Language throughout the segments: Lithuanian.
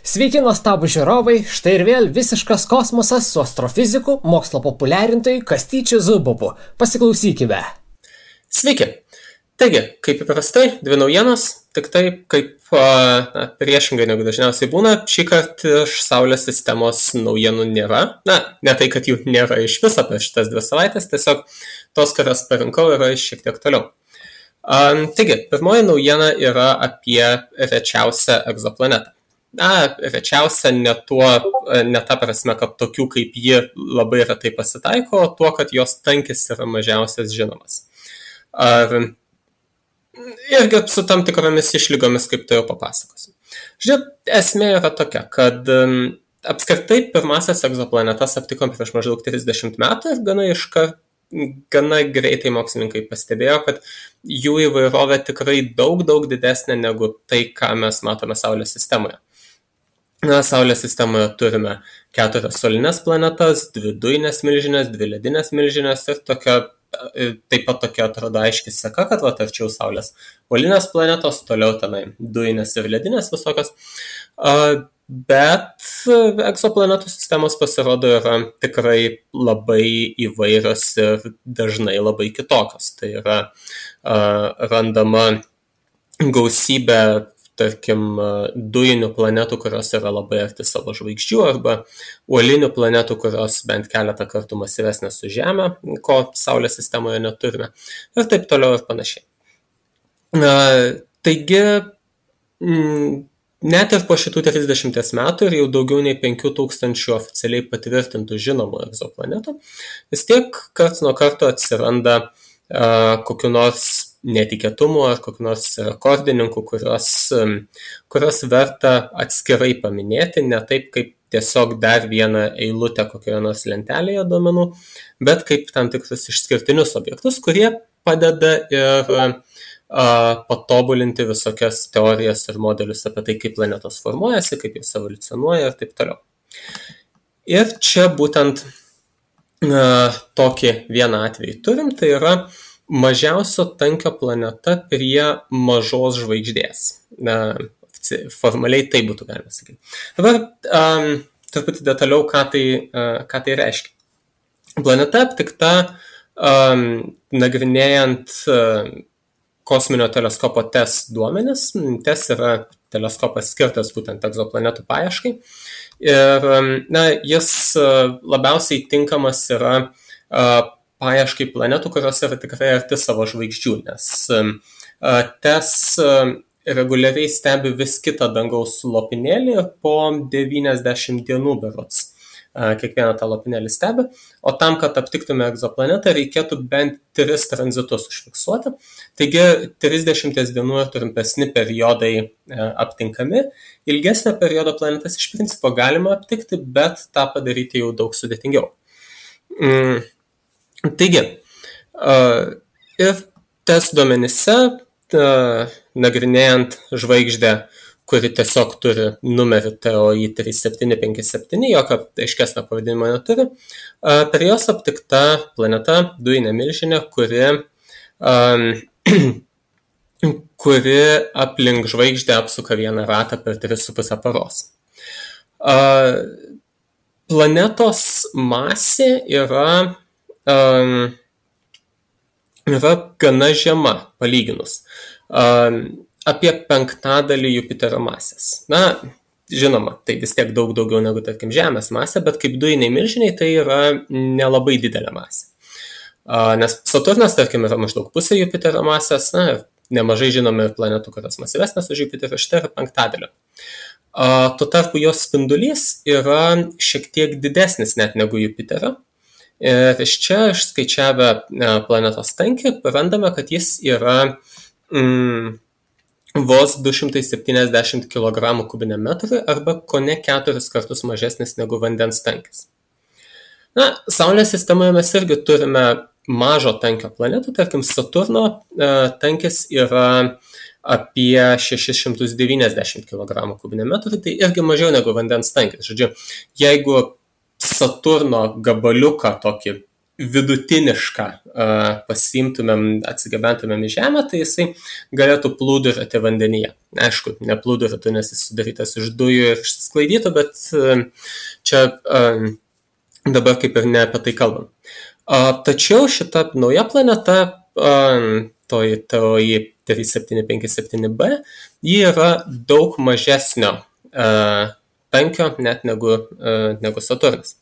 Sveiki, nuostabų žiūrovai, štai ir vėl visiškas kosmosas su astrofiziku, mokslo populiarintojui Kastyčiu Zubovu. Pasiklausykime. Sveiki. Taigi, kaip įprastai, dvi naujienos, tik tai kaip priešingai negu dažniausiai būna, šį kartą iš Saulės sistemos naujienų nėra. Ne tai, kad jų nėra iš viso per šitas 2 savaitės, tiesiog tos, kurias parinkau, yra šiek tiek toliau. Taigi, pirmoji naujiena yra apie rečiausią egzoplanetą. Rečiausia ne ta prasme, kad tokių kaip ji labai retai pasitaiko, o tuo, kad jos tankis yra mažiausias žinomas. Irgi su tam tikromis išlygomis, kaip tai jau papasakosiu. Žiūrėk, esmė yra tokia, kad apskritai pirmasias egzoplanetas aptikom prieš maždaug 30 metų ir gana greitai mokslininkai pastebėjo, kad jų įvairovė tikrai daug didesnė negu tai, ką mes matome Saulės sistemoje. Saulės sistemoje turime 4 solinės planetas, 2 dujinės milžinės, 2 ledinės milžinės ir taip pat tokia atrodo aiški seka, kad arčiau Saulės uolinės planetos, toliau tenai dujinės ir ledinės visokios. Bet egzoplanetų sistemos pasirodo yra tikrai labai įvairios ir dažnai labai kitokios. Tai yra randama gausybė, tarkim, dujinių planetų, kurios yra labai arti savo žvaigždžių, arba uolinių planetų, kurios bent keletą kartų masyvesnės už Žemę, ko Saulės sistemoje neturime, ir taip toliau ir panašiai. Taigi, net ir po šitų 30 metų ir jau daugiau nei 5000 oficialiai patvirtintų žinomų egzoplanetų, vis tiek karts nuo karto atsiranda kokiu nors netikėtumų ar kokiu nors rekordininkų, kurios verta atskirai paminėti, ne taip kaip tiesiog dar vieną eilutę kokioje nors lentelėje duomenų, bet kaip tam tikrus išskirtinius objektus, kurie padeda ir patobulinti visokias teorijas ir modelius apie tai, kaip planetos formuojasi, kaip jos evoliucionuoja ir taip toliau. Ir čia būtent tokį vieną atvejį turim, tai yra mažiausio tankio planeta prie mažos žvaigždės. Formaliai tai būtų galima sakyti. Dabar truputį detaliau, ką tai reiškia. Planeta aptikta nagrinėjant kosminio teleskopo TESS duomenis. TESS yra teleskopas skirtas būtent egzoplanetų paieškai. Ir jis labiausiai tinkamas yra paieškai planetų, kurios yra tikrai arti savo žvaigždžių, nes TESS reguliariai stebi vis kitą dangaus lopinėlį po 90 dienų berods. Kiekvieną tą lopinėlį stebi, o tam, kad aptiktume egzoplanetą, reikėtų bent 3 tranzitus užfiksuoti. Taigi 30 dienų ir trumpesni periodai aptinkami. Ilgesnio periodo planetas iš principo galima aptikti, bet tą padaryti jau daug sudėtingiau. Taigi, ir TESS duomenyse, nagrinėjant žvaigždę, kuri tiesiog turi numerį TOI 3757, jokio aiškesnio pavadinimo neturi, per jos aptikta planeta, dujinė milžinė, kuri aplink žvaigždę apsuka vieną ratą per 3,5 paros. Planetos masė yra gana žema palyginus. Apie 1/5 Jupiterio masės. Žinoma, tai vis tiek daug daugiau negu, tarkim, Žemės masė, bet kaip dujiniai milžiniai tai yra nelabai didelė masė. Nes Saturnas, tarkim, yra maždaug pusė Jupiterio masės, nemažai žinome ir planetų, kurios masyvesnės už Jupiterio, štai yra 1/5. Tuo tarpu jos spindulys yra šiek tiek didesnis net negu Jupiterio. Ir iš čia išskaičiavę planetos tankį, randame, kad jis yra vos 270 kg kubiniam metrui arba kone 4 kartus mažesnis negu vandens tankis. Saulės sistemoje mes irgi turime mažo tankio planetų, tarkim Saturno tankis yra apie 690 kg kubiniam metrui, tai irgi mažiau negu vandens tankis. Žodžiu, jeigu Saturno gabaliuką tokį vidutinišką pasiimtumėm, atsigabentumėm į Žemę, tai jisai galėtų plūduriuoti vandenyje. Aišku, neplūduriuotų, nes jis sudarytas iš dujų ir išsisklaidytų, bet čia dabar kaip ir ne apie tai kalbam. Tačiau šita nauja planeta, toji 3757b, ji yra daug mažesnio tankio net negu Saturnas.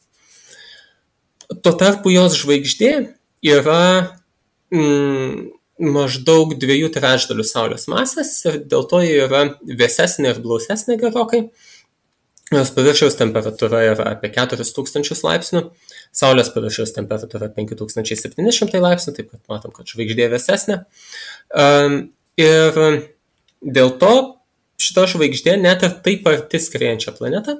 Tuo tarpu jos žvaigždė yra maždaug 2/3 Saulės masės ir dėl to ji yra vėsesnė ir blausesnė gerokai. Jos paviršiaus temperatūra yra apie 4000 laipsnių, Saulės paviršiaus temperatūra 5700 laipsnių, taip kad matom, kad žvaigždė vėsesnė. Ir dėl to šita žvaigždė net ir taip arti skriejančią planetą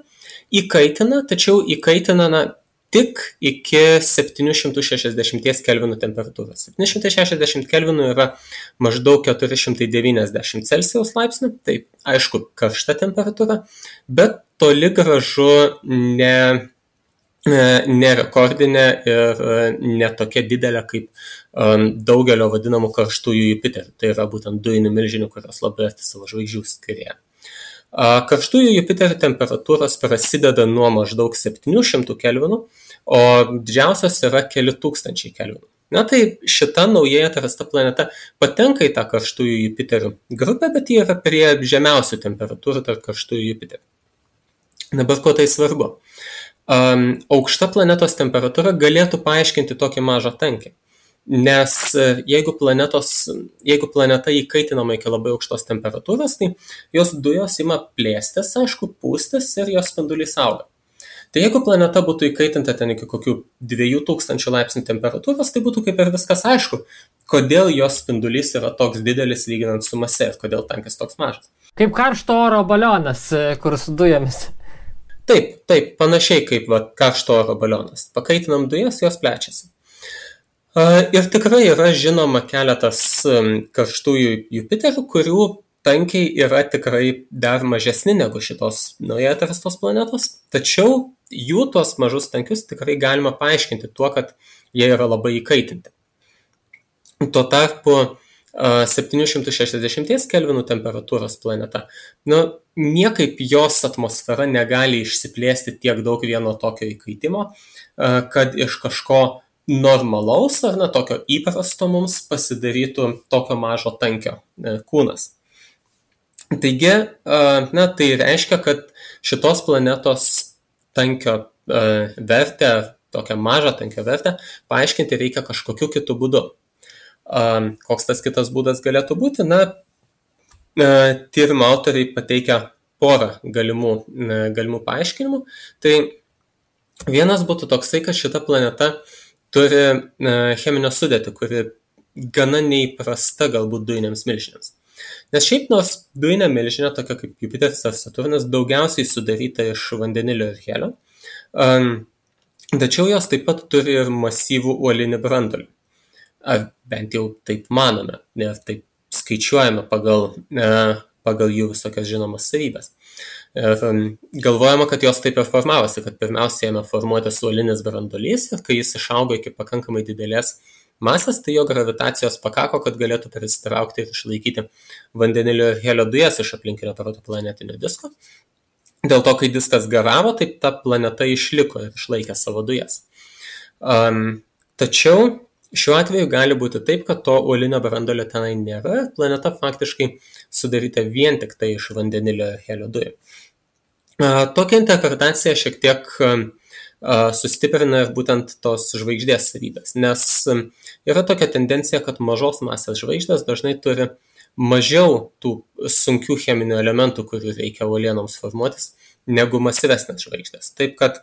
įkaitina, tačiau įkaitina tik iki 760 kelvinų temperatūros. 760 kelvinų yra maždaug 490 Celsijaus laipsnių, tai aišku karšta temperatūra, bet toli gražu ne rekordinė ir ne tokia didelė kaip daugelio vadinamų karštųjų Jupiterių. Tai yra būtent dujinių milžinių, kurios labai arti savo žvaigždžių skrieja. Karštųjų Jupiterių temperatūros prasideda nuo maždaug 700 kelvinų, o didžiausios yra keli tūkstančiai kelvinų. Na tai šita naujai atrasta planeta patenka į tą karštųjų Jupiterių grupę, bet ji yra prie žemiausių temperatūrų tarp karštųjų Jupiterių. Dabar ko tai svarbu? Aukšta planetos temperatūra galėtų paaiškinti tokį mažą tankį. Nes jeigu planeta įkaitinama iki labai aukštos temperatūros, tai jos dujos ima plėstis, aišku, pūstis ir jos spindulys auga. Tai jeigu planeta būtų įkaitinta ten iki kokių 2000 laipsnių temperatūros, tai būtų kaip ir viskas aišku, kodėl jos spindulys yra toks didelis lyginant su mase ir kodėl tankis toks mažas. Kaip karšto oro balionas, kur su dujomis. Taip, panašiai kaip karšto oro balionas. Pakaitinam dujas, jos plečiasi. Ir tikrai yra žinoma keletas karštųjų Jupiterių, kurių tankiai yra tikrai dar mažesni negu šitos naujai atrastos planetos, tačiau jų tuos mažus tankius tikrai galima paaiškinti tuo, kad jie yra labai įkaitinti. Tuo tarpu 760 kelvinų temperatūros planeta, niekaip jos atmosfera negali išsiplėsti tiek daug vieno tokio įkaitimo, kad iš kažko normalaus ar tokio įprasto mums pasidarytų tokio mažo tankio kūnas. Taigi, tai reiškia, kad šitos planetos tankio vertę, tokią mažą tankio vertę, paaiškinti reikia kažkokiu kitu būdu. Koks tas kitas būdas galėtų būti? Tyrimo autoriai pateikia porą galimų paaiškinimų. Tai vienas būtų toksai, kad šita planeta turi cheminę sudėtį, kuri gana neįprasta galbūt dujiniams milžinėms. Nes šiaip nors dujinė milžinė, tokia kaip Jupiteris ar Saturnas, daugiausiai sudaryta iš vandenilio ir helio, tačiau jos taip pat turi ir masyvų uolinį branduolį. Ar bent jau taip manome, ir taip skaičiuojame pagal jų visokias žinomas savybės. Ir galvojama, kad jos taip ir formavosi, kad pirmiausia ėmė formuotis uolinis branduolys ir kai jis išaugo iki pakankamai didelės masės, tai jo gravitacijos pakako, kad galėtų prisitraukti ir išlaikyti vandenilio ir helio dujas iš aplinkinio protoplanetinio disko. Dėl to, kai diskas garavo, taip ta planeta išliko ir išlaikė savo dujas. Tačiau šiuo atveju gali būti taip, kad to uolinio branduolio tenai nėra, planeta faktiškai sudaryta vien tik tai iš vandenilio ir helio dujų. Tokią interpretaciją šiek tiek sustiprina ir būtent tos žvaigždės savybės, nes yra tokia tendencija, kad mažos masės žvaigždės dažnai turi mažiau tų sunkių cheminių elementų, kurių reikia uolienoms formuotis, negu masyvesnės žvaigždės. Taip kad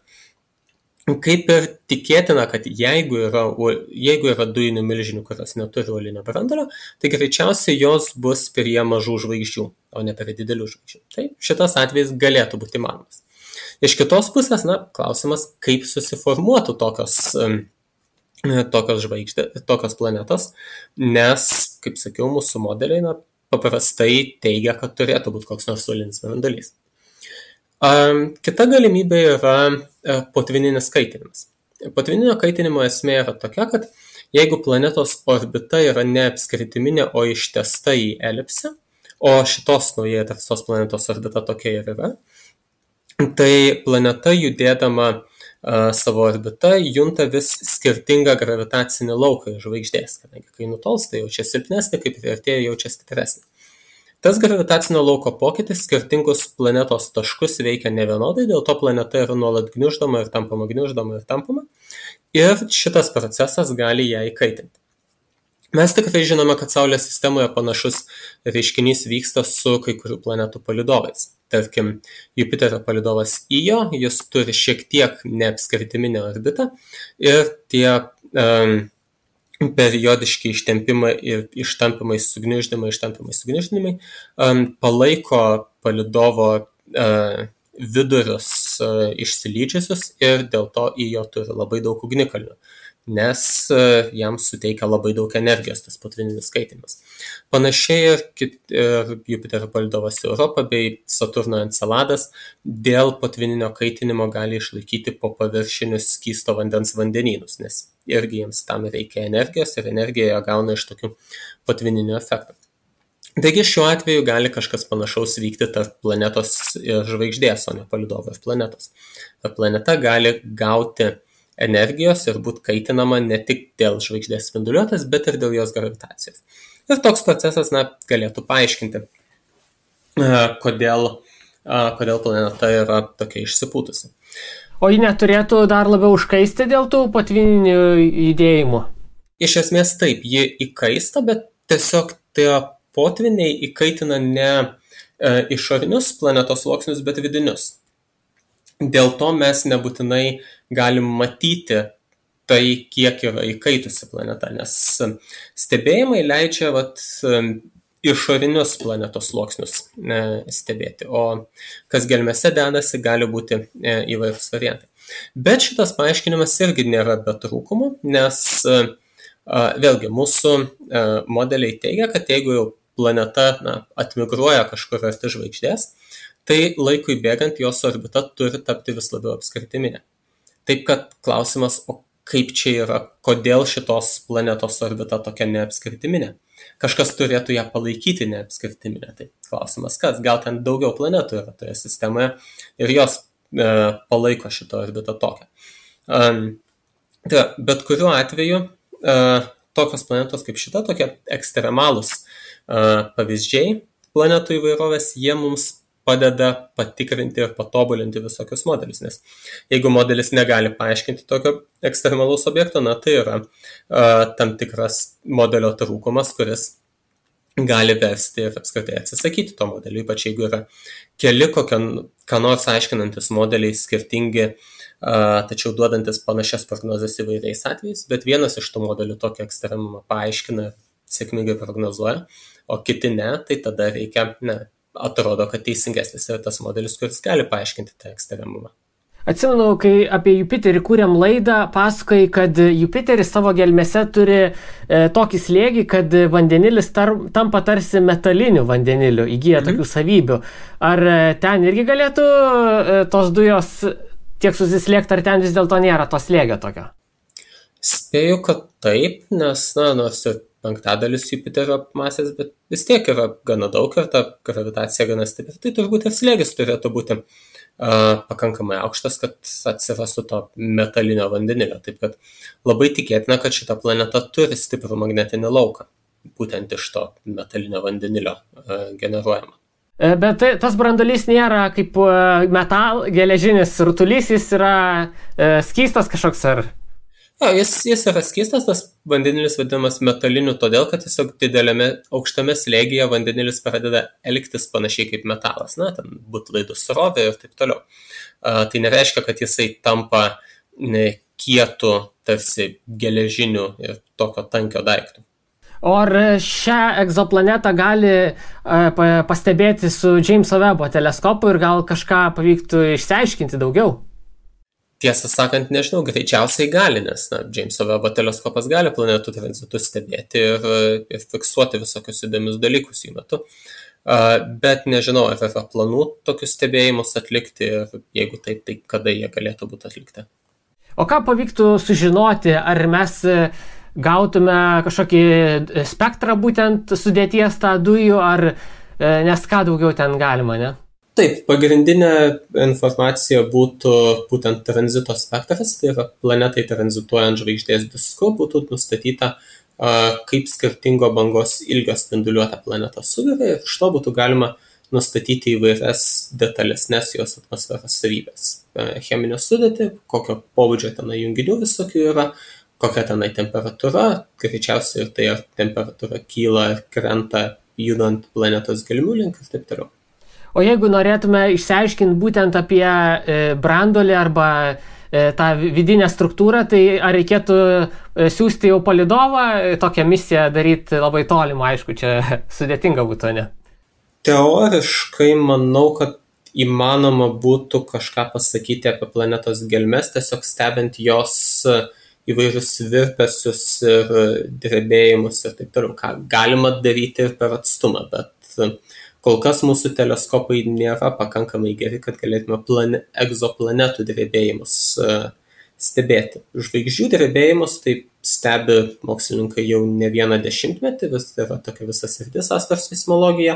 kaip ir tikėtina, kad jeigu yra dujinių milžinių, kurios neturi uolinio branduolio, tai greičiausiai jos bus prie mažų žvaigždžių, o ne prie didelių žvaigždžių. Tai šitas atvejis galėtų būti įmanomas. Iš kitos pusės, klausimas, kaip susiformuotų tokios planetos, nes, kaip sakiau, mūsų modeliai paprastai teigia, kad turėtų būti koks nors uolinis branduolys. Kita galimybė yra potvininis kaitinimas. Potvyninio kaitinimo esmė yra tokia, kad jeigu planetos orbita yra ne apskritiminė, o ištęsta į elipsę, o šitos naujai atrastos planetos orbita tokia ir yra, tai planeta judėdama savo orbitą junta vis skirtingą gravitacinį lauką iš žvaigždės, kadangi kai nutolsta jaučia silpnesnį, kaip priartėja jaučia stipresnį. Tas gravitacinio lauko pokytis skirtingus planetos taškus veikia nevienodai, dėl to planeta yra nuolat gniuždoma ir tampama, gniuždoma ir tampama, ir šitas procesas gali ją įkaitinti. Mes tikrai žinome, kad Saulės sistemoje panašus reiškinys vyksta su kai kurių planetų palydovais. Tarkim, Jupiterio palydovas Io, jis turi šiek tiek neapskritiminę orbitą ir tie periodiški ištempimai ir ištampimai sugniuždymai palaiko palydovo vidurius išsilydžiusius ir dėl to Io turi labai daug ugnikalnių, nes jam suteikia labai daug energijos tas potvyninis kaitinimas. Panašiai ir Jupiterio palydovas Europa bei Saturno Enceladas dėl potvyninio kaitinimo gali išlaikyti po paviršinius skysto vandens vandenynus, nes irgi jiems tam reikia energijos ir energiją jie gauna iš tokių potvyninio efektų. Taigi šiuo atveju gali kažkas panašaus vykti tarp planetos ir žvaigždės, o ne palydovo ir planetos. Planeta gali gauti energijos ir būti kaitinama ne tik dėl žvaigždės spinduliuotės, bet ir dėl jos gravitacijos. Ir toks procesas galėtų paaiškinti, kodėl planeta yra tokia išsipūtusi. O ji neturėtų dar labiau užkaisti dėl tų potvyninių judėjimų? Iš esmės taip, ji įkaista, bet tiesiog tie potvyniai įkaitina ne išorinius planetos sluoksnius, bet vidinius. Dėl to mes nebūtinai galim matyti tai, kiek yra įkaitusi planeta, nes stebėjimai leidžia išorinius planetos sluoksnius stebėti, o kas gelmėse dedasi, gali būti įvairūs variantai. Bet šitas paaiškinimas irgi nėra be trūkumų, nes vėlgi mūsų modeliai teigia, kad jeigu jau planeta atmigruoja kažkur arti žvaigždės, tai laikui bėgant jos orbita turi tapti vis labiau apskritiminė. Taip kad klausimas, o kaip čia yra, kodėl šitos planetos orbita tokia neapskritiminė? Kažkas turėtų ją palaikyti neapskritiminę. Tai klausimas, kas? Gal ten daugiau planetų yra toje sistemoje ir jos palaiko šitą orbitą tokią. Bet kuriuo atveju tokios planetos kaip šita, tokie ekstremalūs pavyzdžiai planetų įvairovės, jie mums padeda patikrinti ir patobulinti visokius modelius, nes jeigu modelis negali paaiškinti tokio ekstremalaus objekto, tai yra tam tikras modelio trūkumas, kuris gali versti ir apskritai atsisakyti to modelio, ypač jeigu yra keli ką nors aiškinantis modeliai skirtingi, tačiau duodantis panašias prognozes įvairiais atvejais, bet vienas iš tų modelių tokį ekstremumą paaiškina ir sėkmingai prognozuoja, o kiti ne, tai tada reikia, atrodo, kad teisingesnis yra tas modelis, kuris gali paaiškinti tą ekstremumą. Atsimenu, kai apie Jupiterį kūrėm laidą, pasakai, kad Jupiteris savo gelmėse turi tokį slėgį, kad vandenilis tampa tarsi metaliniu vandeniliu, įgyja tokių savybių. Ar ten irgi galėtų tos dujos tiek susislėgti, ar ten vis dėlto nėra to slėgio tokio? Spėju, kad taip, nes, nors ir penktadalis Jupiterio masės, bet vis tiek yra gana daug ir ta gravitacija gana stipri, tai turbūt ir slėgis turėtų būti pakankamai aukštas, kad atsirastų to metalinio vandenilio. Taip kad labai tikėtina, kad šita planeta turi stiprų magnetinį lauką, būtent iš to metalinio vandenilio generuojama. Bet tas branduolys nėra kaip geležinis rutulys, jis yra skystas kažkoks ar... Jis yra skystas, tas vandenilis vadinamas metaliniu todėl, kad tiesiog didelėme aukštame slėgyje vandenilis pradeda elgtis panašiai kaip metalas, ten būtų laidų srovė ir taip toliau. Tai nereiškia, kad jisai tampa kietu, tarsi geležiniu ir tokio tankio daiktų. O ar šią egzoplanetą gali pastebėti su Jameso Webbo teleskopu ir gal kažką pavyktų išsiaiškinti daugiau? Tiesą sakant, nežinau, greičiausiai gali, nes Jameso Webbo teleskopas gali planetų tranzitus stebėti ir fiksuoti visokius įdomius dalykus jų metu. Bet nežinau, ar yra planų tokius stebėjimus atlikti ir jeigu taip, tai kada jie galėtų būti atlikti. O ką pavyktų sužinoti, ar mes gautume kažkokį spektrą būtent sudėties tą dujų, ar nes ką daugiau ten galima, ne? Taip, pagrindinė informacija būtų būtent tranzito spektras, tai yra planetai tranzituojant žvaigždės disku, būtų nustatyta, kaip skirtingo bangos ilgio spinduliuota planeta sugeria ir iš to būtų galima nustatyti įvairias detalesnės jos atmosferos savybės. Cheminę sudėtį, kokio pobūdžio tenai junginių visokių yra, kokia tenai temperatūra, greičiausiai ir tai ar temperatūra kyla ir krenta judant planetos gelmių link ir taip toliau. O jeigu norėtume išsiaiškinti būtent apie branduolį arba tą vidinę struktūrą, tai ar reikėtų siųsti jau palydovą, tokią misiją daryti labai tolimą, aišku, čia sudėtinga būtų, ne? Teoriškai manau, kad įmanoma būtų kažką pasakyti apie planetos gelmes, tiesiog stebint jos įvairius virpesius ir drebėjimus ir taip toliau, ką galima daryti ir per atstumą, bet kol kas mūsų teleskopai nėra pakankamai geri, kad galėtume egzoplanetų drebėjimus stebėti. Žvaigždžių drebėjimus tai stebi mokslininkai jau ne vieną dešimtmetį, vis yra tokia visa sritis astroseismologija,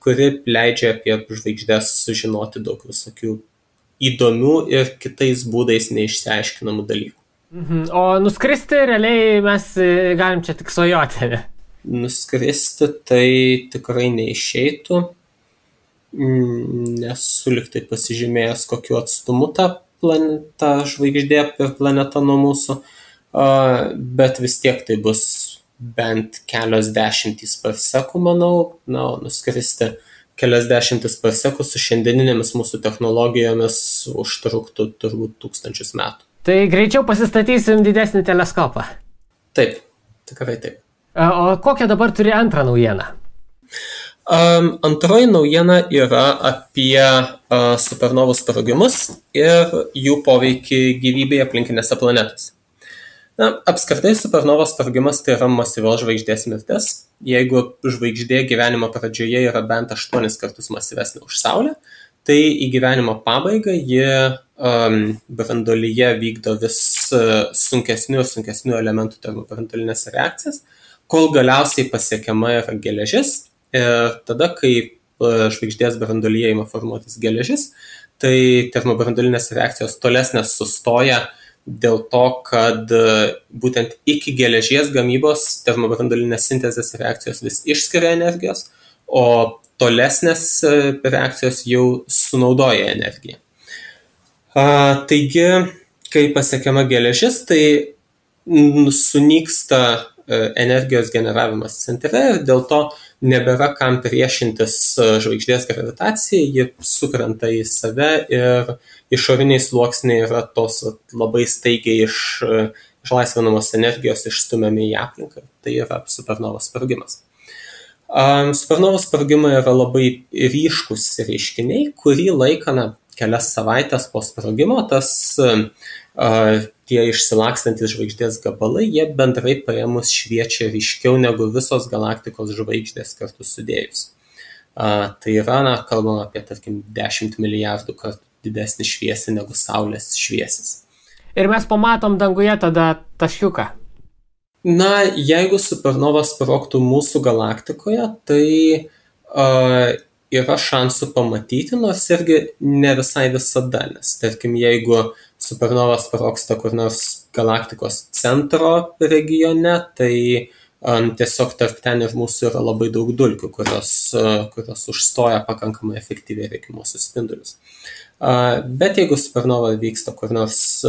kuri leidžia apie žvaigždės sužinoti daug visokių įdomių ir kitais būdais neišsiaiškinamų dalykų. O nuskristi realiai mes galim čia tik svajoti, ne? Nuskristi tai tikrai neišeitų, nesu liktai pasižymėjęs, kokiu atstumu ta žvaigždė per planetą nuo mūsų, bet vis tiek tai bus bent kelios dešimtys parsekų, manau, nuskristi kelias dešimtis parsekų su šiandieninėmis mūsų technologijomis užtruktų turbūt 1000 metų. Tai greičiau pasistatysim didesnį teleskopą. Taip, tikrai taip. O kokią dabar turi antrą naujieną? Antroji naujiena yra apie supernovų sprogimus ir jų poveikį gyvybei aplinkinėse planetose. Apskritai supernovos sprogimas tai yra masyvios žvaigždės mirtis. Jeigu žvaigždė gyvenimo pradžioje yra bent 8 kartus masyvesnė už Saulę, tai į gyvenimo pabaigą ji branduolyje vykdo vis sunkesnių ir sunkesnių elementų termobranduolinės reakcijas, kol galiausiai pasiekiama yra geležis ir tada, kai žvaigždės branduolyje ima formuotis geležis, tai termobranduolinės reakcijos tolesnės sustoja dėl to, kad būtent iki geležies gamybos termobranduolinės sintezės reakcijos vis išskiria energijos, o tolesnės reakcijos jau sunaudoja energiją. Taigi, kai pasiekiama geležis, tai sunyksta energijos generavimas centre ir dėl to nebėra kam priešintis žvaigždės gravitacijai, ji sukrenta į save ir išoriniai sluoksniai yra tos labai staigiai išlaisvinamos energijos išstumiami į aplinką. Tai yra supernovos sprogimas. Supernovos sprogimai yra labai ryškus reiškiniai, kurį laiką, kelias savaitės po sprogimo, tie išsilakstantis žvaigždės gabalai, jie bendrai paėmus šviečia ryškiau negu visos galaktikos žvaigždės kartu sudėjus. Tai yra, kalbama apie, tarkim, 10 milijardų kartų didesnį šviesį negu Saulės šviesis. Ir mes pamatom danguje tada taškiuką. Jeigu supernova sprogtų mūsų galaktikoje, tai yra šansų pamatyti, nors irgi ne visai visada, nes tarkim, jeigu supernova sprogsta kur nors galaktikos centro regione, tai tiesiog tarp ten ir mūsų yra labai daug dulkių, kurios užstoja pakankamai efektyviai reikiamuosius spindulius. Bet jeigu supernova vyksta kur nors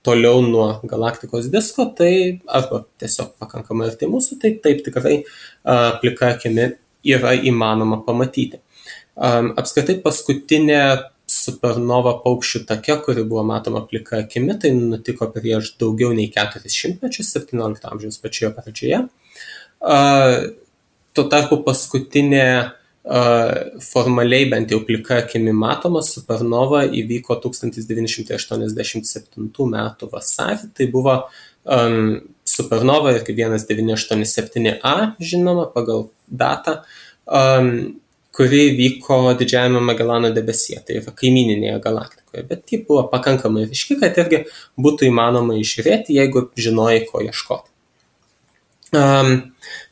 toliau nuo galaktikos disko, tai arba tiesiog pakankamai arti mūsų, tai taip tikrai plika akimi yra įmanoma pamatyti. Apskritai paskutinė supernova paukščių take, kuri buvo matoma plika akimi, tai nutiko prieš daugiau nei 400 mečius, 17 amžiaus pačioje pradžioje. Tuo tarpu paskutinė formaliai bent jau plika akimi matoma supernova įvyko 1987 metų vasarį. Tai buvo supernova irgi 1987A, žinoma, pagal datą, kuri vyko Didžiajame Magelano debesyje, tai yra kaimyninėje galaktikoje, bet ji buvo pakankamai ryški, kad irgi būtų įmanoma išžiūrėti, jeigu žinojai, ko ieškoti.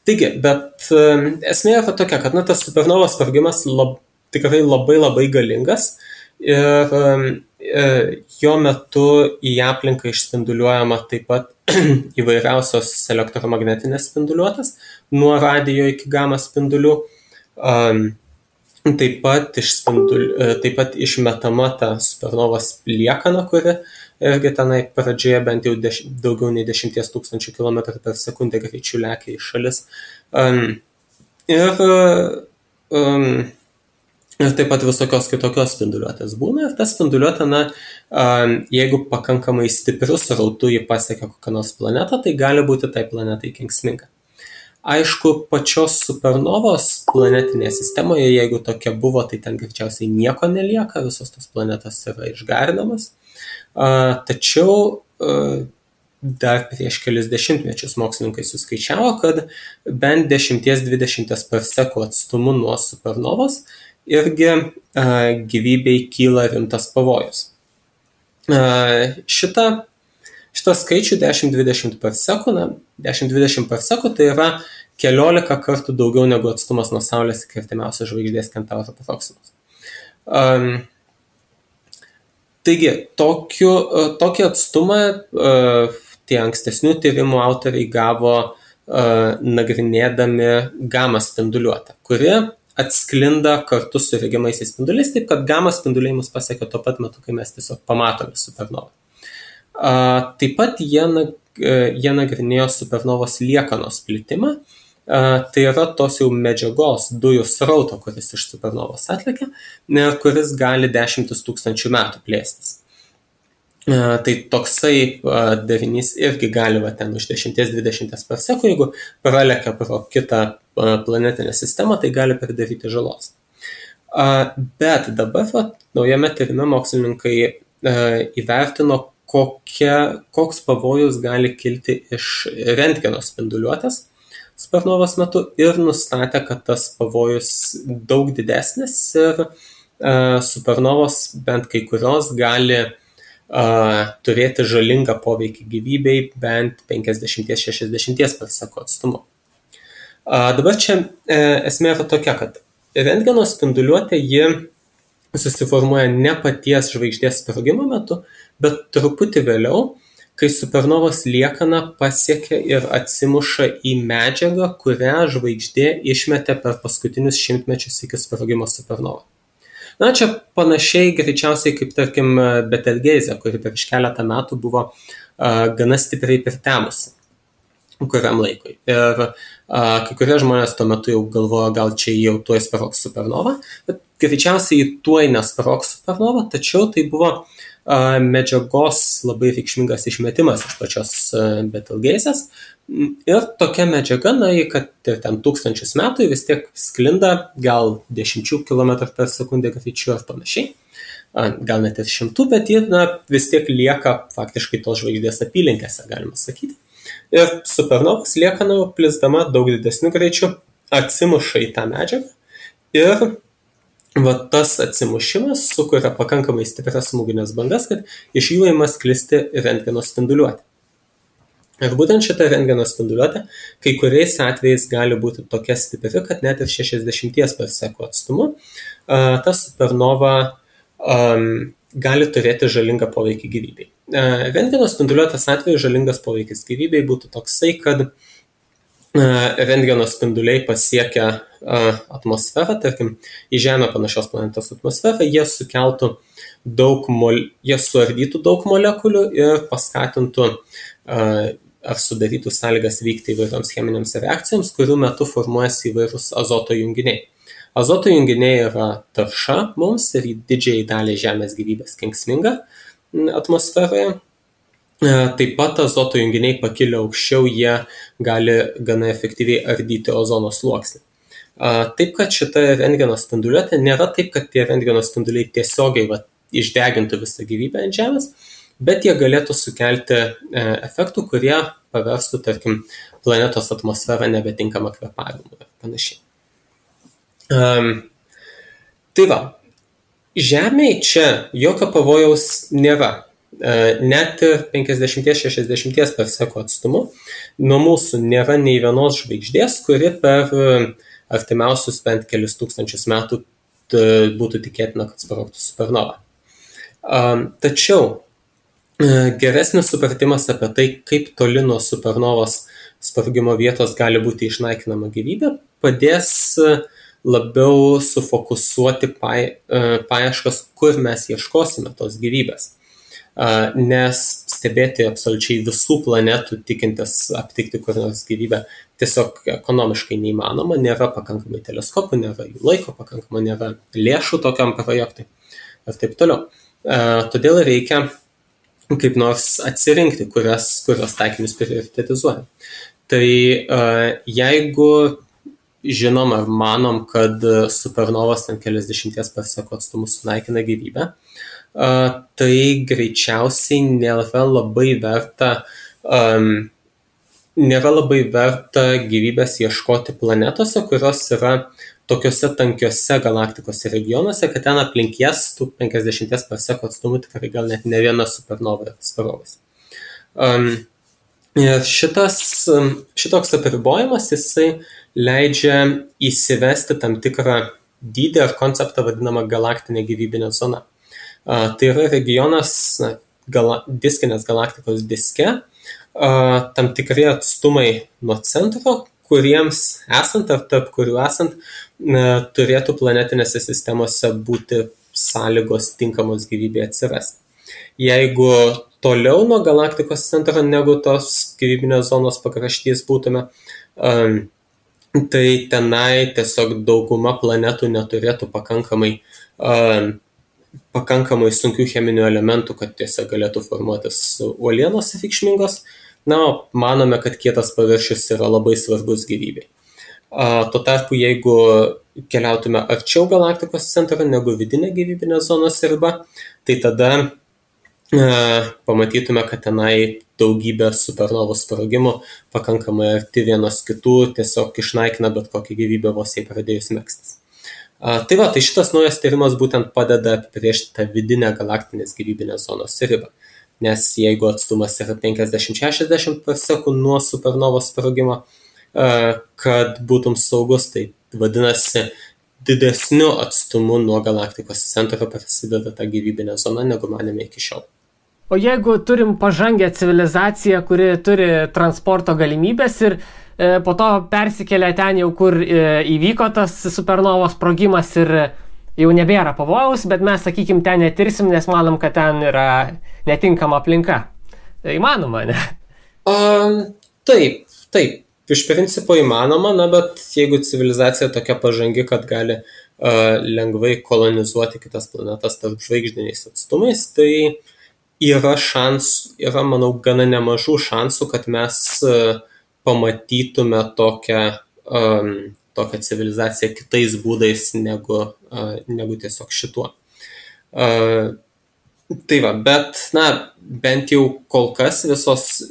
Taigi, bet esmė yra tokia, kad tas supernovos sprogimas tikrai labai galingas ir jo metu į aplinką išspinduliuojama taip pat įvairiausios elektromagnetinės spinduliuotės, nuo radijo iki gama spindulių. Taip pat išmetama ta supernovos liekana, kuri irgi tenai pradžioje bent jau daugiau nei 10 000 km per sekundę greičiu lekia į šalis. Ir taip pat visokios kitokios spinduliuotės būna. Ir ta spinduliuotė, jeigu pakankamai stiprius srautu jį pasiekia kokią nors planetą, tai gali būti tai planetai kenksminga. Aišku, pačios supernovos planetinėje sistemoje, jeigu tokia buvo, tai ten greičiausiai nieko nelieka, visos tos planetos yra išgarinamas. Tačiau dar prieš kelis dešimtmečius mokslininkai suskaičiavo, kad bent 10-20 parsekų atstumu nuo supernovos irgi gyvybei kyla rimtas pavojus. Šitą skaičių 10-20 parsekų, 10-20 parsekų tai yra 14 kartų daugiau negu atstumas nuo Saulės iki artimiausios žvaigždės Kentauro Proximus. Taigi, tokį atstumą tie ankstesnių tyrimų autoriai gavo nagrinėdami gamą spinduliuotę, kuri atsklinda kartu su regimaisiais spinduliais, taip kad gamą spinduliai mus pasiekia tuo pat metu, kai mes tiesiog pamatome supernovą. Taip pat jie nagrinėjo supernovos liekanos plitimą, tai yra tos jau medžiagos dujų srauto, kuris iš supernovos atlekia, kuris gali 10 000 metų plėstis. Tai toksai darinys irgi gali ten už 10-20 parsekų, jeigu pralekia pro kitą planetinę sistemą, tai gali pridaryti žalos. Bet dabar naujame tyrime mokslininkai įvertino, koks pavojus gali kilti iš rentgeno spinduliuotės supernovos metu ir nustatė, kad tas pavojus daug didesnis ir supernovos bent kai kurios gali turėti žalingą poveikį gyvybei bent 50-60 parsekų atstumu. Dabar čia esmė yra tokia, kad rentgeno spinduliuotė ji susiformuoja ne paties žvaigždės sprogimo metu, bet truputį vėliau, kai supernovos liekana pasiekia ir atsimuša į medžiagą, kurią žvaigždė išmetė per paskutinius šimtmečius iki sprogimo supernovą. Čia panašiai greičiausiai kaip, tarkim, Betelgeizė, kuri prieš keletą metų buvo gana stipriai pritemusi kuriam laikui. Ir kai kurie žmonės tuo metu jau galvojo, gal čia jau tuoj sprogs supernova, bet greičiausiai tuoj nesprogs supernova, tačiau tai buvo medžiagos labai reikšmingas išmetimas iš pačios Betelgeizės. Ir tokia medžiaga, kad ir ten 1000 metų vis tiek sklinda gal 10 km per sekundę greičiu ar panašiai, gal net ir 100, bet ji vis tiek lieka faktiškai tos žvaigždės apylinkėse, galima sakyti. Ir supernovos liekana plisdama daug didesniu greičiu atsimuša į tą medžiagą ir tas atsimušimas sukuria pakankamai stiprias smūginės bangas, kad iš jų ima sklisti rentgeno spinduliuotė. Ir būtent šitą rentgeno spinduliuotę kai kuriais atvejais gali būti tokia stipri, kad net ir 60 parsekų atstumu ta supernova gali turėti žalingą poveikį gyvybei. Rentgeno spinduliuotės atveju žalingas poveikis gyvybei būtų toksai, kad rentgeno spinduliai pasiekia atmosferą, tarkim, į Žemę panašios planetos atmosferą, jie suardytų daug molekulių ir paskatintų ar sudarytų sąlygas vykti įvairioms cheminėms reakcijoms, kurių metu formuojasi įvairūs azoto junginiai. Azoto junginiai yra tarša mums ir didžiai daliai Žemės gyvybės kenksminga atmosferoje. Taip pat azoto junginiai pakilę aukščiau, jie gali gana efektyviai ardyti ozono sluoksnį. Taip, kad šita rentgeno spinduliuotė nėra taip, kad tie rentgeno spinduliai tiesiogiai išdegintų visą gyvybę ant Žemės, bet jie galėtų sukelti efektų, kurie paverstų, tarkim, planetos atmosferą nebetinkamą kvėpavimui ir panašiai. Tai va, Žemėje čia jokio pavojaus nėra. Net 50-60 parsekų atstumu nuo mūsų nėra nei vienos žvaigždės, kuri per artimiausius bent kelius tūkstančius metų būtų tikėtina, kad sprogtų supernova. Tačiau geresnis supratimas apie tai, kaip toli nuo supernovos sprogimo vietos gali būti išnaikinama gyvybė, padės labiau sufokusuoti paieškas, kur mes ieškosime tos gyvybės. Nes stebėti absoliučiai visų planetų, tikintis aptikti kur nors gyvybę, tiesiog ekonomiškai neįmanoma, nėra pakankamai teleskopų, nėra jų laiko pakankamai, nėra lėšų tokiam projektui ir taip toliau. Todėl reikia kaip nors atsirinkti, kurios taikinius prioritetizuojam. Tai jeigu žinom ar manom, kad supernovos ten keliasdešimties parsekų atstumus sunaikina gyvybę, tai greičiausiai nėra labai verta gyvybės ieškoti planetose, kurios yra tokiuose tankiuose galaktikos regionuose, kad ten aplink jas tų 50 parsekų atstumų tikrai gal net ne viena supernova yra sprogęs. Šitoks apribojimas jisai leidžia įsivesti tam tikrą dydį ar konceptą vadinamą galaktinė gyvybinė zona. Tai yra regionas diskinės galaktikos diske, tam tikri atstumai nuo centro, kuriems esant ar tarp kurių esant turėtų planetinėse sistemose būti sąlygos tinkamos gyvybė atsirasti. Jeigu toliau nuo galaktikos centro negu tos gyvybinės zonos pakraštys būtume, tai tenai tiesiog dauguma planetų neturėtų pakankamai sunkių cheminių elementų, kad tiesiog galėtų formuotis uolienos reikšmingos. Manome, kad kietas paviršius yra labai svarbus gyvybei. Tuo tarpu, jeigu keliautume arčiau galaktikos centro negu vidinė gyvybinė zonos riba, tai tada pamatytume, kad tenai daugybė supernovų sprogimų pakankamai arti vienos kitų tiesiog išnaikina bet kokią gyvybę vos jai pradėjus megztis. Tai šitas naujas tyrimas būtent padeda apibrėžti tą vidinę galaktinės gyvybinės zonos ribą. Nes jeigu atstumas yra 50-60 parsekų nuo supernovos sprogimo, kad būtum saugus, tai vadinasi didesniu atstumu nuo galaktikos centro prasideda ta gyvybinė zona, negu manėme iki šiol. O jeigu turim pažangę civilizaciją, kuri turi transporto galimybės ir po to persikelia ten jau, kur įvyko tas supernovos sprogimas ir jau nebėra pavojaus, bet mes, sakykim, ten netirsim, nes manom, kad ten yra netinkama aplinka. Tai įmanoma, ne? Taip. Iš principo įmanoma, bet jeigu civilizacija tokia pažangi, kad gali lengvai kolonizuoti kitas planetas tarp žvaigždiniais atstumais, tai yra, manau, gana nemažų šansų, kad mes pamatytume tokią civilizaciją kitais būdais negu tiesiog šituo. Tai bet, bent jau kol kas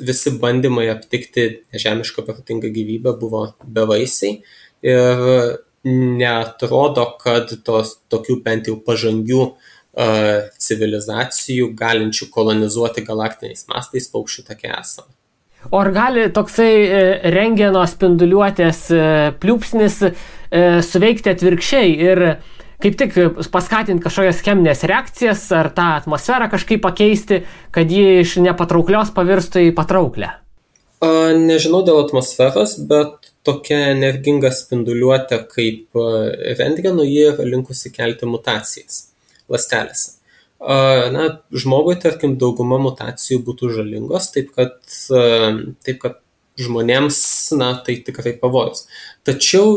visi bandymai aptikti nežemišką protingą gyvybę buvo bevaisiai ir neatrodo, kad tokių bent jau pažangių civilizacijų galinčių kolonizuoti galaktiniais mastais paukščių take esama. O ar gali toksai rentgeno spinduliuotės pliūpsnis suveikti atvirkščiai ir kaip tik paskatinti kažkokias cheminės reakcijas ar tą atmosferą kažkaip pakeisti, kad ji iš nepatrauklios pavirstų į patrauklę? Nežinau dėl atmosferos, bet tokia energinga spinduliuotė kaip rentgeno, ji yra linkusi kelti mutacijas ląstelėse. Žmogui, tarkim, dauguma mutacijų būtų žalingos, taip kad žmonėms, tai tikrai pavojus. Tačiau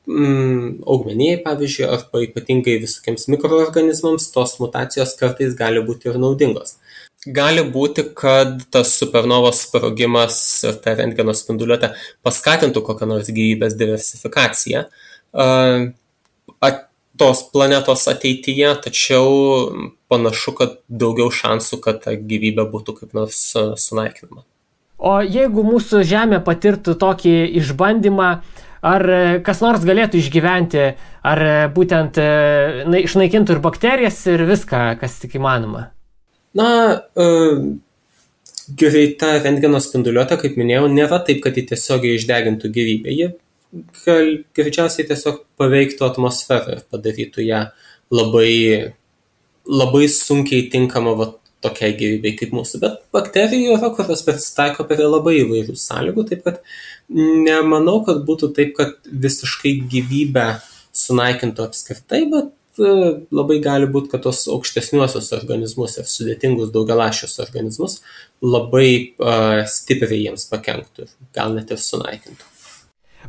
augmenijai, pavyzdžiui, arba ypatingai visokiems mikroorganizmams, tos mutacijos kartais gali būti ir naudingos. Gali būti, kad tas supernovos sprogimas ir ta rentgeno spinduliuotė paskatintų kokią nors gyvybės diversifikaciją tos planetos ateityje, tačiau panašu, kad daugiau šansų, kad ta gyvybė būtų kaip nors sunaikinama. O jeigu mūsų Žemė patirtų tokį išbandymą, ar kas nors galėtų išgyventi, ar būtent išnaikintų ir bakterijas ir viską, kas tik įmanoma? Na, greita rentgeno spinduliuotė, kaip minėjau, nėra taip, kad ji tiesiogiai išdegintų gyvybę. Ji greičiausiai tiesiog paveiktų atmosferą ir padarytų ją labai sunkiai tinkama tokiai gyvybei kaip mūsų. Bet bakterijų yra, kurios prisitaiko prie labai įvairių sąlygų, taip kad nemanau, kad būtų taip, kad visiškai gyvybę sunaikintų apskritai, bet labai gali būti, kad tos aukštesniuosius organizmus ir sudėtingus daugialašius organizmus labai stipriai jiems pakenktų, gal net ir sunaikintų.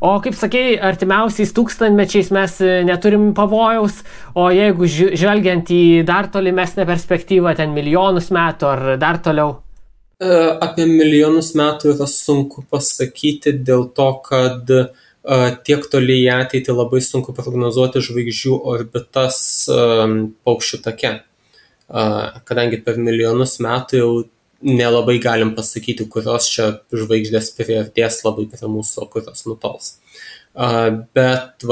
O kaip sakei, artimiausiais tūkstantmečiais mes neturim pavojaus, o jeigu žvelgiant į dar tolimesnę perspektyvą, ten milijonus metų ar dar toliau? Apie milijonus metų yra sunku pasakyti dėl to, kad tiek toli į ateitį labai sunku prognozuoti žvaigždžių orbitas paukščių take. Kadangi per milijonus metų jau nelabai galim pasakyti, kurios čia žvaigždės priartės labai prie mūsų, o kurios nutols. Bet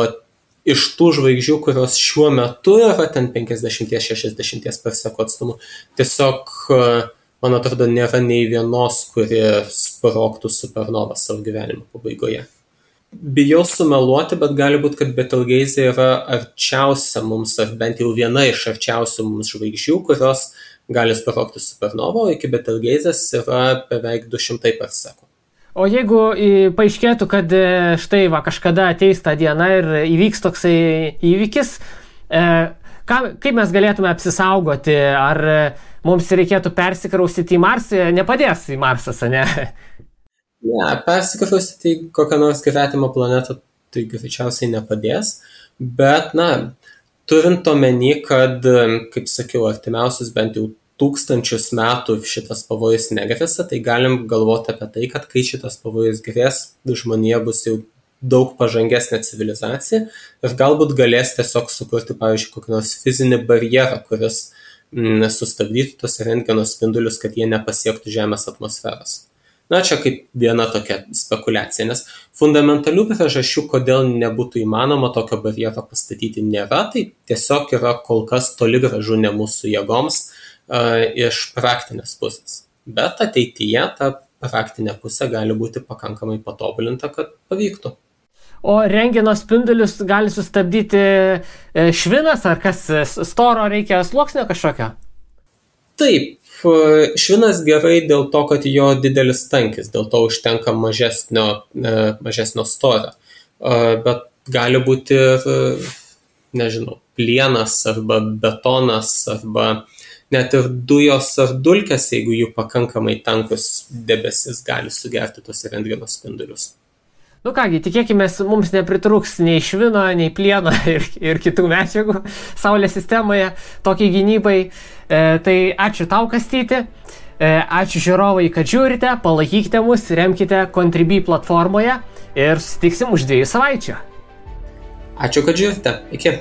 iš tų žvaigždžių, kurios šiuo metu yra ten 50-60 per sekų atstumu, tiesiog, man atrodo, nėra nei vienos, kuri sprogtų supernovą savo gyvenimo pabaigoje. Bijau sumeluoti, bet gali būti, kad Betelgeuse yra arčiausia mums, ar bent jau viena iš arčiausių mums žvaigždžių, kurios gali sprogti supernovą, o iki Betelgeusės yra beveik 200 per sekų. O jeigu paaiškėtų, kad štai kažkada ateis tą dieną ir įvyks toksai įvykis, kaip mes galėtume apsisaugoti? Ar mums reikėtų persikraustyti į Marsą? Nepadės į Marsą, ne? Ne, persikraustyti į kokią nors gretimą planetą tai greičiausiai nepadės, bet, turint omeny, kad, kaip sakiau, artimiausius bent jau 1000 metų šitas pavojus negrėsia, tai galim galvoti apie tai, kad kai šitas pavojus grės, žmonija bus jau daug pažangesnė civilizacija ir galbūt galės tiesiog sukurti, pavyzdžiui, kokį nors fizinį barjerą, kuris sustabdytų tos rentgeno spindulius, kad jie nepasiektų Žemės atmosferos. Čia kaip viena tokia spekulacija, nes fundamentalių priežasčių, kodėl nebūtų įmanoma tokio barjero pastatyti, nėra, tai tiesiog yra kol kas toli gražu ne mūsų jėgoms iš praktinės pusės. Bet ateityje ta praktinė pusė gali būti pakankamai patobulinta, kad pavyktų. O rentgeno spindulius gali sustabdyti švinas, ar kas storo reikia sluoksnio kažkokio? Taip. Švinas gerai dėl to, kad jo didelis tankis, dėl to užtenka mažesnio storio. Bet gali būti ir, plienas arba betonas arba net ir dujos ar dulkės, jeigu jų pakankamai tankus debesis gali sugerti tos rentgeno spindulius. Kągi, tikėkime, mums nepritrūks nei švino, nei plieno ir kitų medžiagų Saulės sistemoje tokiai gynybai. Tai ačiū tau, Kastyti. Ačiū žiūrovai, kad žiūrite, palaikykite mus, remkite Contribui platformoje ir susitiksim už 2 savaičių. Ačiū, kad žiūrite. Iki.